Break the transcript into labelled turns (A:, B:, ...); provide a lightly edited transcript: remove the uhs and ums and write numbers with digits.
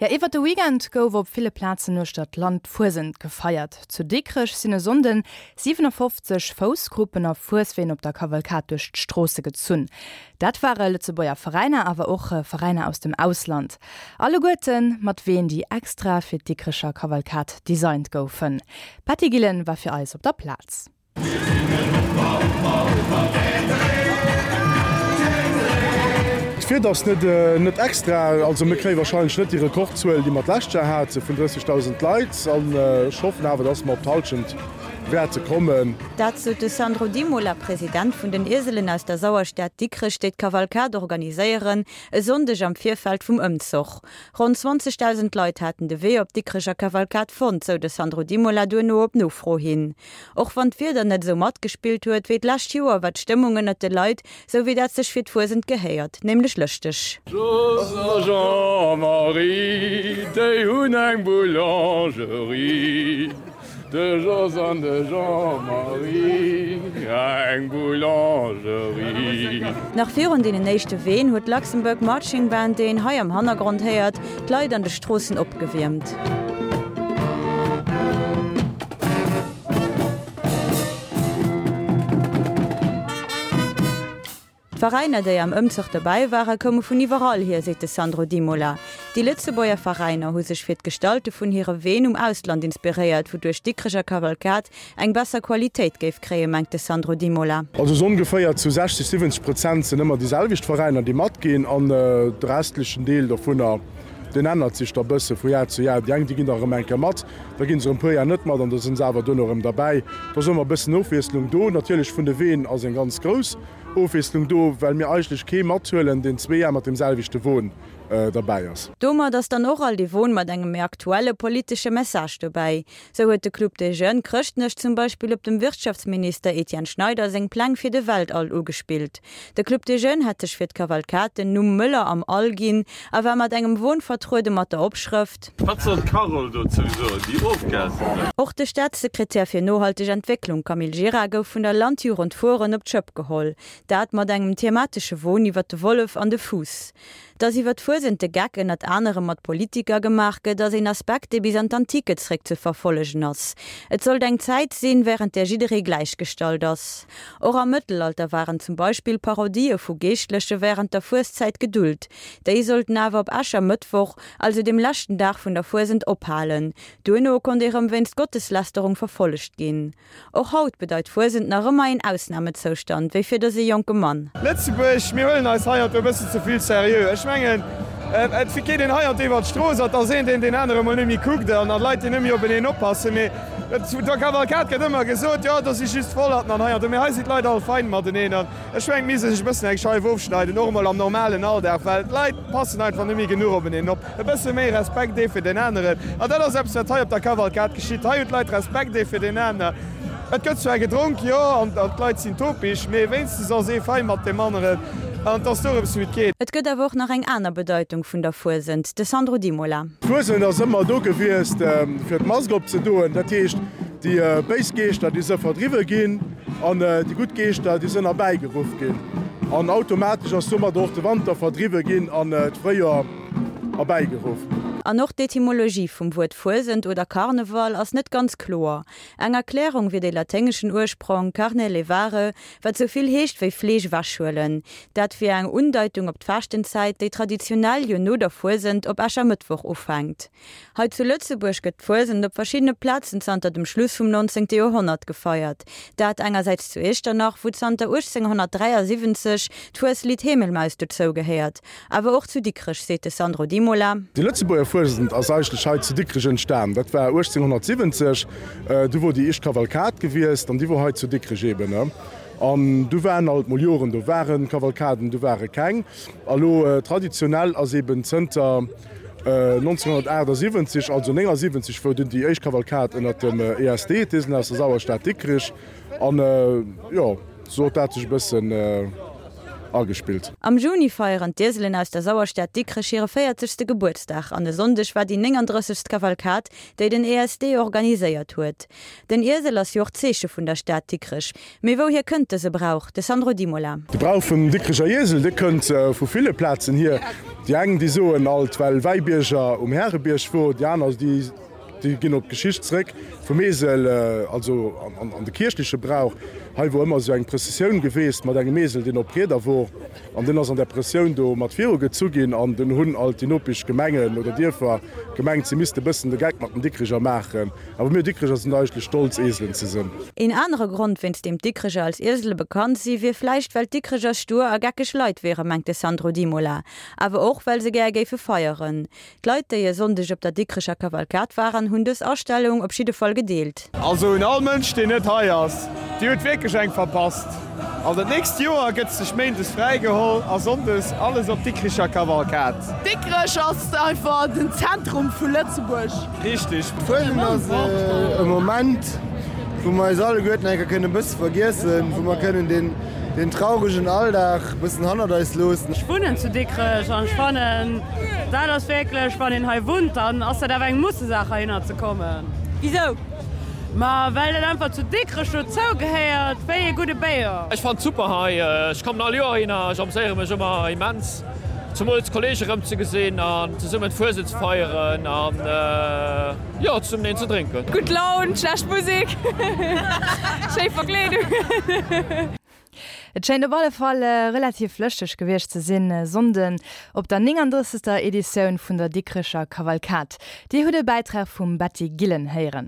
A: Jo, iwwert de Weekend gouf op ville Plazen uechter d'Land d'Fuesent gefeiert. Zu Dikrech sinn e Sonnden 57 Foussgruppen a Fuesween op der Kavalkad duerch d'Stroosse gezunn. Dat ware Lëtzebuerger Veräiner, awer och Veräiner aus dem Ausland. Alleguerte mat Ween, déi extra fir d'Dikrecher Kavalkad designt goufen. D'Patty Gillen war fir eis op der Plaz.
B: D'Wieder ass net extra, also mir kréie warscheinlech net déi Rekordzuel, déi mer d'lescht Joer hate vun 30.000 Leit. An ech hoffen awer, dass mer op d'Hallschent wäerte kommen.
C: Dat sot de Sandro Di Mola, President vun den Ieselen aus der Sauerstad Dikrech, déi d'Kavalkad organiséieren, e Sonndeg am Virfeld vum Ëmzoch. Ronn 20.000 Leit haten de Wee op d'Dikrecher Kavalkad fonnt, sou de Sandro Di Mola duerno op Nofro hin. Och wann d'Wieder net esou matgespillt huet wéi d'lescht Joer, war d'Stëmmung ënnert de Leit sou wéi dat sech fir d'Fuesent gehéiert, nämlech lëschteg.
D: Jos a Jean-Marie, déi hunn eng Boulangerie. De Jos an de Jean-Marie, eng Boulangerie.
C: Nach virun deenen éischte Ween huet d'Luxembourg Marching Band, déi een hei am Hannergrond héiert, d'Leit an de Stroossen opgewiermt. D'Veräiner, déi am Ëmzuch dobäi waren, koume vun iwwerall hier, seet de Sandro Dimola. Déi Lëtzebuerger Veräiner hu sech fir d'Gestalte vun hire Ween um Ausland inspiréiert, wouduerch d'Dikrecher Kavalkad eng besser Qualitéit géif kréien, mengt de Sandro Dimola.
B: Also sou ongeféier zu 60, 70 Prozent sinn ëmmer déi selwecht Veräiner, déi matginn an de restlechen Deel dovunner, deen ännert sech da bësse vu Jar zu Jar. Déi eng, déi ginn da erëm eng Kéier mat, Da ginn se erëm e puer Jar net mat an da sinn se awer duerno erëm derbäi. Do ass ëmmer e bëssen Ofwiesslung do. Natierlech vun de Ween ass eng ganz grouss Ofwiesslung do, well mir eigentlech kee mathuelen, deen zwee Jar mat deem selwechte Won derbäi ass.
C: Domat ass dann och all dee Won mat engem méi aktuelle politesche Message dobäi. Sou huet de Club des Jeunes Chrëschtnech zum Beispill op dem Wirtschaftsminister Etienne Schneider seng Pläng fir de Weltall ugespillt. De Club des Jeunes hat sech fir d'Kavalkad den Numm Möller am All ginn a war mat engem Won vertruede mat der Opschrëft.
D: Wat soll d'Carole dozou soen, déi Ofgasen?
C: Och de Staatssekretär fir nohalteg Entwécklung Camille Gira gouf vun der Landjugend Furen op d'Schëpp geholl. Dat mat engem thematesche Won iwwer de Wollef an de Fuuss. Dass iwwer d'Fuesent de Geck ënnert anerem mat Politiker gemaach gëtt, ass een Aspekt, dee bis an d'Antike zréck ze verfollegen ass. Et sollt eng Zäit sinn, wärend där jidderee gläichgestallt ass. Och am Mëttelalter waren zum Beispill Parodië vu Geeschtleche wärend der Fueszäit gedult. Déi sollten awer op Äschermëttwoch, also dem leschten Dag vun der Fuesent, ophalen. Duerno konnt ee rëm wéinst Gotteslästerung verfollegt ginn. Och haut bedeit Fuesent nach ëmmer een Ausnamezoustand, wéi fir dëse jonke Mann.
E: Lëtzebuerg, mir huelen eis hei an do e bëssen ze vill seriö. Ech mengen, et geet een hei an do iwwer d'Strooss an et ass een, deen deen anere mol net méi kuckt an Leit, déi net méi openeen oppassen. Mee der Kavalkad gëtt ëmmer gesot, jo, do si just Vollerten an hei an do. Mee hei sinn d'Leit all fein mateneen an ech mengen, et misst ee sech e bëssen eng Scheif ofschneiden, och emol am normalen Alldag, well d'Leit passen einfach net méi genuch openeen op. E bësse méi Respekt ee fir deen aneren. An dat ass eppes, wat hei op der Kavalkad geschitt. Hei hunn d'Leit Respekt ee fir deen aner. Et gëtt zwar gedronk, jo, an d'Leit sinn topeg, mee wéinstens ass ee fein mat deem aneren an et ass dorëms, wéi et geet.
C: Et gëtt awer och nach eng aner Bedeitung vun der Fuesent, de Sandro Di Mola.
B: D'Fuesent ass ëmmer do gewiesst, fir d'Mask opzedoen. Dat heescht, déi béis Geeschter, déi se verdriwwe ginn an déi gutt Geeschter, déi sënn erbäigeruff ginn. An automatesch ass domadder och de Wanter verdriwwe ginn an d'Fréijoer. Erbäigeruff.
C: An och d'Etymologie vum Wuert Fuesent oder Karneval ass net ganz kloer. Eng Erklärung wier de laténgeschen Ursprong carne levare, wat sou vill heescht wéi Fleesch ewechhuelen. Dat wier eng Undeitung op d'Faaschtenzäit, déi traditionell jo no der Fuesent op Äschermëttwoch ufänkt. Hei zu Lëtzebuerg gëtt d'Fuesent op verschiddene Plazen zanter dem Schluss vum 19. Joerhonnert gefeiert. Dat engersäits zu Iechternach, wou zanter 1873 d'Fueslidd Hemelmaus dozou gehéiert, awer och zu Dikrech, seet de Sandro Di Mola.
B: Déi Lëtzebuerger Fuesent ass eigentlech hei zu Dikrech entstan. Dat war 1870, du wor déi éischt Kavalkad gewiesst an déi wor hei zu Dikrech eben. An du waren alt mol Joren, do ware Kavalkaden, du ware keng. A lo traditionell ass eben zënter 1978, also 79 wou dunn déi éischt Kavalkad ënnert dem ESD, d'Eselen aus der Sauerstad Dikrich, an jo, sou huet dat sech e bëssen. Agespillt.
C: Am Juni feieren d'Ieselen aus der Sauerstad Dikrech hire véierzegste Gebuertsdag an e Sonndeg war déi 39. Kavalkad, déi den ESD organiséiert huet. Den Iesel ass jo och d'Zeeche vun der Stad Dikrech. Mee wouhier kënnt dëse Brauch? De Sandro Dimola.
B: De Brauch vum Dikrecher Iesel, dee kënnt vu ville Plazen hier. Déi eng, déi soen alt, well Wäibierger um Härebierg wor, déi aner, déi. Déi ginn op d'Geschicht zréck vum Esel, also an de kierchleche Brauch. Hei wor ëmmer esou eng Prëssessioun geweest mat engem Esel, deen op Rieder wor, an deen ass an där Prëssioun do mat viru gezu ginn. An dunn hunn alt déi nopesch Gemengen oder Dierfer gemengt, si misste bëssen de Geck mat den Dikricher maachen. Awer mir Dikricher sinn eigentlech stolz, Eselen ze sinn.
C: Een anere Grond, wéinst deem d'Dikricher als Iesele bekannt si, wier vläicht, well d'Dikricher stur a geckeg Leit wieren, mengt de Sandro Dimola. Awer och, well se gär géife feieren. D'Leit, déi e Sonndeg op der Dikrecher Kavalkad waren, hunn dës Astellung op jidde Fall gedeelt.
E: Also un all Mënsch deen net hei ass, dir hutt wierklech eng verpasst. Also d'nächst Joer gëtt sech Méindes fräi geholl a Sonndes alles op d'Dikricher Kavalkad.
F: Dikrech ass einfach den Zentrum vu Lëtzebuerg.
E: Richteg.
G: D'Fuesent ass e Moment, wou mer eis alleguerten eng Kéier kënnen e bësse vergiessen, wou mer kënnen deen deen trauregen Alldag e bëssen hannert eis loossen.
F: Ech wunnen zu Dikrech an ech fannen dat ass wierklech, wann een hei wunnt, dann ass dat awer eng Mussesaach heihinner ze kommen.
C: Wisou?
F: Ma well dat einfach zu Dikrech dozou gehéiert wéi ee gudde Béier.
D: Ech fannen et super hei, ech kommen all Joer heihinner, ech amséiere mech ëmmer immens, zemools d'Kollege rëm ze gesinn an zesummen d'Fuesent ze feieren an jo zesummen een ze drénken.
F: Gutt Laun, schlecht Musek, schéi Verkleedung.
A: Et schéint op alle Fall relativ lëschteg gewiescht ze sinn e Sonnden op der 39. Editioun vun der Dikrecher Kavalkad. Dir hutt e Bäitrag vum Betty Gillen héieren.